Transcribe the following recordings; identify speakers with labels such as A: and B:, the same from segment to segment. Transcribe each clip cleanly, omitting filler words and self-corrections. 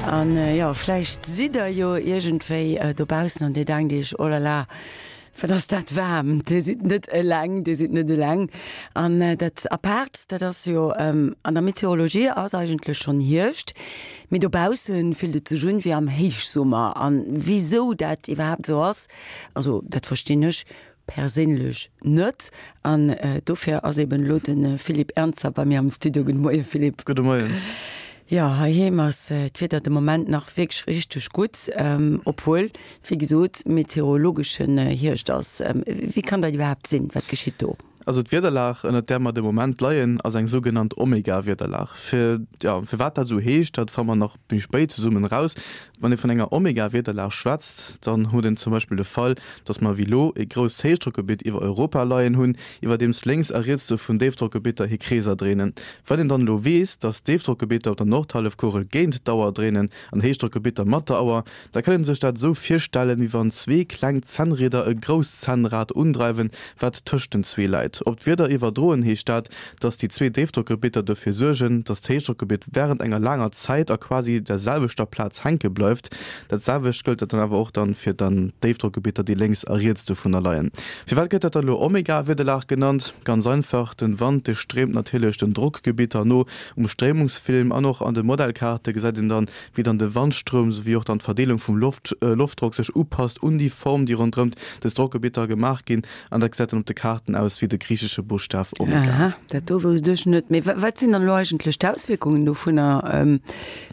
A: An jo, vläicht sidd der jo iergendwéi dobaussen an dir denkt iech, Oh la la, wat ass dat waarm! Dir sidd net eleng, dir sidd net eleng. An dat Apaart, dat ass jo, an der Meteorologie ass eigentlech schonn Hierscht, mee dobausse fillt et sech un wéi am Héichsummer. An wisou dat iwwerhaapt esou ass, also dat verstinn ech Perséinlech net. An dofir ass eben elo de Philippe Ernzer bei mir am Studio. Gudde Moie Philippe.
B: Gudde Moien.
A: Jo, heiheem ass d'Wieder de Moment nach wierklech richteg gutt, obwuel, wéi gesot, meteorologeschen Hierscht ass. Wéi kann dat iwwerhaapt sinn? Wat geschitt do?
B: Also d'Wiederlag, ënnert där mer de Moment leien, ass eng sougenannt Omega-Wiederlag. Fir, jo, firwat dat esou heescht, dat fanne mer nach méi spéit zesummen eraus. Wann ee vun enger Omega-Wiederlag schwätzt, dann huet een zum Beispill de Fall, dass mer wéi lo e grousst Héichdrockgebitt iwwer Europa leien hunn, iwwerdeems lénks a riets dovun Déifdrockgebitter hir Kreeser dréinen. Wann een dann elo weess, dass d'Déifdrockgebitter op der Nordhallefkugel géint d'Auer dréinen an Héichdrockgebitter mat der Auer, Da kann een sech dat esou virstellen, wéi wann zwee kleng Zännrieder e grousst Zännrad undreiwen, wat tëscht den zwee läit. Op d'Wieder iwwerdroen heescht dat, dass déi zwee Déifdrockgebitter dofir suergen, dass d'Héichdrockgebitt wärend enger laanger Zäit a quasi der selwechter Plaz hänke bleift. Dat selwecht gëllt dann awer och dann fir dann d'Déifdrockgebitter, déi lénks a riets dovunner leien. Firwat gëtt dat dann elo Omega-Wiederlag genannt? Ganz einfach, den Wand dee stréimt natierlech den Drockgebitter no. Um Stréimungsfilm an och an de Modellkaarte gesäit een dann, wéi dann de Wandstroum souwéi och dann d'Verdeelung vum Loft Loftdrock sech upasst un déi Form, déi ronderëmt des Drockgebitter gemaach ginn, an dat gesäit dann op de Kaarten aus wéi de griichesche Buschtaf Omega.
A: Aha, dat do wousst ech net. Mee wat sinn dann elo eigentlech d'Auswierkungen dovunner?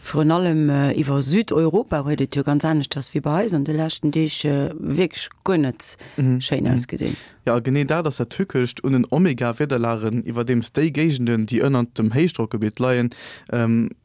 A: Virun allem iwwer Südeuropa huet et jo ganz aneschters wéi bei eis an de leschten Deeg wierklech guer net schéin ausgesinn.
B: Jo, a genee dat ass dat Tückescht un den Omega-Wiederlagen, iwwerdeems déi Géigenden, déi ënnert dem Héichdrockgebitt leien,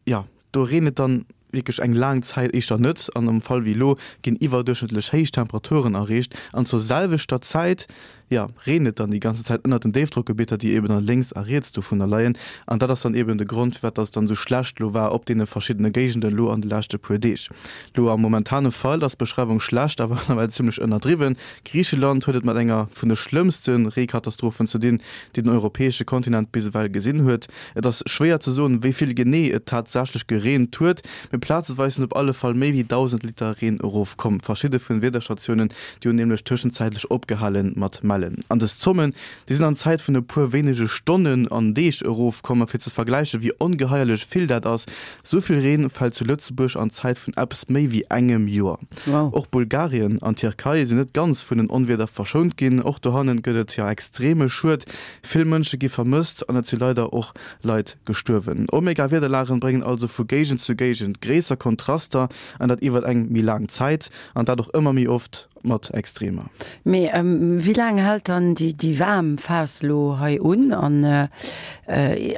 B: jo, Do reent et dann wierklech eng laang Zäit éischter net, an am Fall wéi elo ginn iwwerduerchschnëttlech héich Temperaturen erreecht an zur selwechter Zäit, jo, reent et dann déi ganze Zäit ënnert den Déifdrockgebitter, déi eben dann lénks a riets dovunner leien. An dat ass dann eben de Grond, firwat dass et dann esou schlecht elo war op deene verschiddene Géigenden elo an de leschte puer Deeg. Elo am momentane Fall ass d'Beschreiwung schlecht, awer nawell zimmlech ënnerdriwwen. Griicheland huet et mat enger vun de schlëmmste Reekatastrophen ze dinn, déi den europäesche Kontinent bis ewell gesinn huet. Et ass schwéier ze soen, wéi vill genee et tatsächlech gereent huet, mee plazeweis sinn op alle Fall méi wéi 1.000 Liter Reen erofkomm. Verschidde vun Wiederstatiounen, déi hunn nämlech tëschenzäitlech opgehale mat mellen. An dës Zommen, déi sinn an Zäit vun e puer wéinege Stonnen an Deeg erofkomm. A fir ze vergläichen, wéi ongeheierlech vill dat ass, Sou vill Reen fält zu Lëtzebuerg an Zäit vun eppes méi wéi engem Joer.
A: Wow.
B: Och Bulgarien an d'Tierkei sinn net ganz vun den Onwieder verschount ginn. Och dohannen gëtt et jo extreme Schued. Vill Mënsche gi vermësst an et si leider och Leit gestuerwen. Omega-Wiederlagen bréngen also vu Géigend zu Géigend gréisser Kontraster an dat iwwert eng méi laang Zäit an dat och ëmmer méi oft mat Extremer.
A: Mee wéi laang hält dann déi waarm Phas elo hei un? An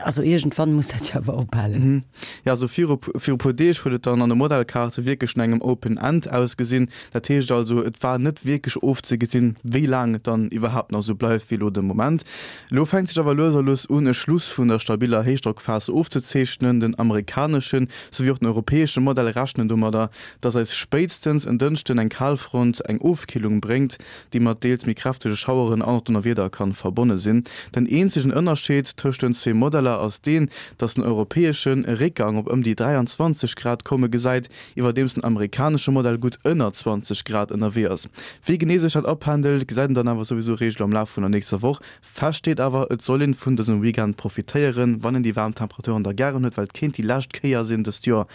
A: also iergendwann muss dat jo awer ophalen.
B: Jo, also viru viru puer Deeg huet et dann an de Modellkaarte wierklech no engem Open End ausgesinn. Dat heescht also, et war net wierklech ofzegesinn, wéi laang et dann iwwerhaapt nach esou bleift wéi elo de Moment. Elo fänkt sech awer lues a lues un, e Schluss vun der stabiller Héichdrockphas ofzezeechnen. Den amerikaneschen souwéi och den europäesche Modell rechnen domadder, dass eis spéitstens en Dënschden eng Kalfront eng Ofkillung bréngt, déi mat deels méi kräftege Schaueren an och Donnerwieder kann verbonne sinn. Den eenzegen Ënnerscheed tëscht den zwee Modeller ass deen, dass den europäeschen e Réckgang op ëm déi 23 Grad komme gesäit, iwwerdeems den amerikanesche Modell gutt ënner 20 Grad ënnerwee ass. Wéi genee sech dat apendelt, gesäit een dann awer souwisou réischt am Laf vun der nächster Woch. Fest steet awer, et soll een vun dësem Weekend profitéieren, wann een déi waarm Temperaturen da gären huet, well et kéint déi lescht Kéier sinn dëst Joer,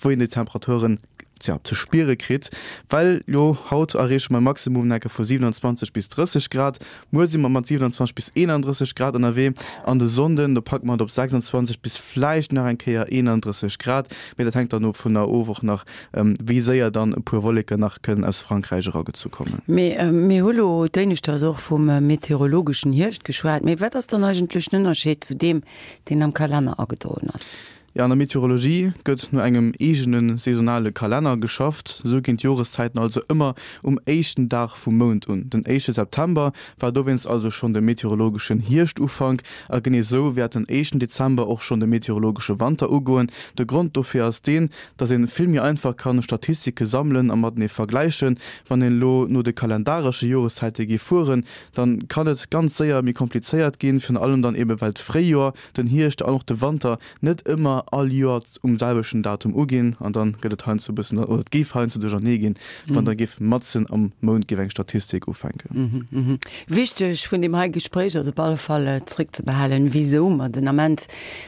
B: wou een déi Temperaturen, tja, ze spiere kritt. Well jo, haut erreeche mer e Maximum enke vu 27 bis 30 Grad, muer si mer mat 27 bis 31 Grad ënnerwee an de Sonnden, do packe mer et op 26 bis vläicht nach eng Kéier 31 Grad, mee dat hänkt dann dovunner of och nach, wéi séier dann e puer Wolleken nach kënnen aus Frankräich eragezu kommen.
A: Mee mir hu lo d'éineschters och vum meteorologeschen Hierscht geschwat, mee wat ass dann eigentlech den Ënnerscheed zu deem, deen am Kalenner agedroen ass?
B: Jo, an der Meteorologie gëtt no engem eegene saisonale Kalenner geschafft. Esou ginn d'Joreszäiten also ëmmer um éischten Dag vum Mount un. Den éischte September war dowéinst also schonn de meteorologeschen Hierschtufank a genee esou wäert den éischten Dezember och schonn de meteorologesche Wanter ugoen. De Grond dofir ass deen, dass een vill méi einfach kann Statistike sammelen a matenee vergläichen. Wann een elo no de kalendaresche Joreszäite géif fueren, dann kann et ganz séier méi komplizéiert ginn, virun allem dann eben well d'Fréijoer, den Hierscht an och de Wanter net ëmmer. ëmmer all Joer um selwechten Datum uginn an dann gëtt et heiansdo e bëssen, oder et géif heiansdo duerchernee ginn, wann da géif matzen am Mount géif eng Statistik ufänken.
A: Wichteg vun deem hei Gespréich ass op alle Fall zréckzebehalen, wisou mer den Ament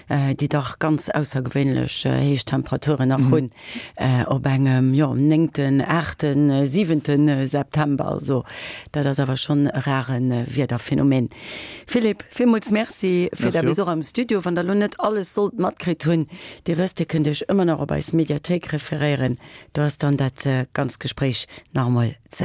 A: déi dach ganz aussergewéinlech héich Temperaturen nach hunn op engem, jo, néngten, aachten, siwente September. Also dat ass awer schonn e rare Wiederphenomen. Philippe, villmools Merci fir däi Besuch am Studio. Wann der elo net alles sollt matkritt hunn, Dir wësst, Dir kënnt Iech ëmmer nach op eis Mediathéik referéieren. Do ass dann dat ganzt Gespréich nach emol ze.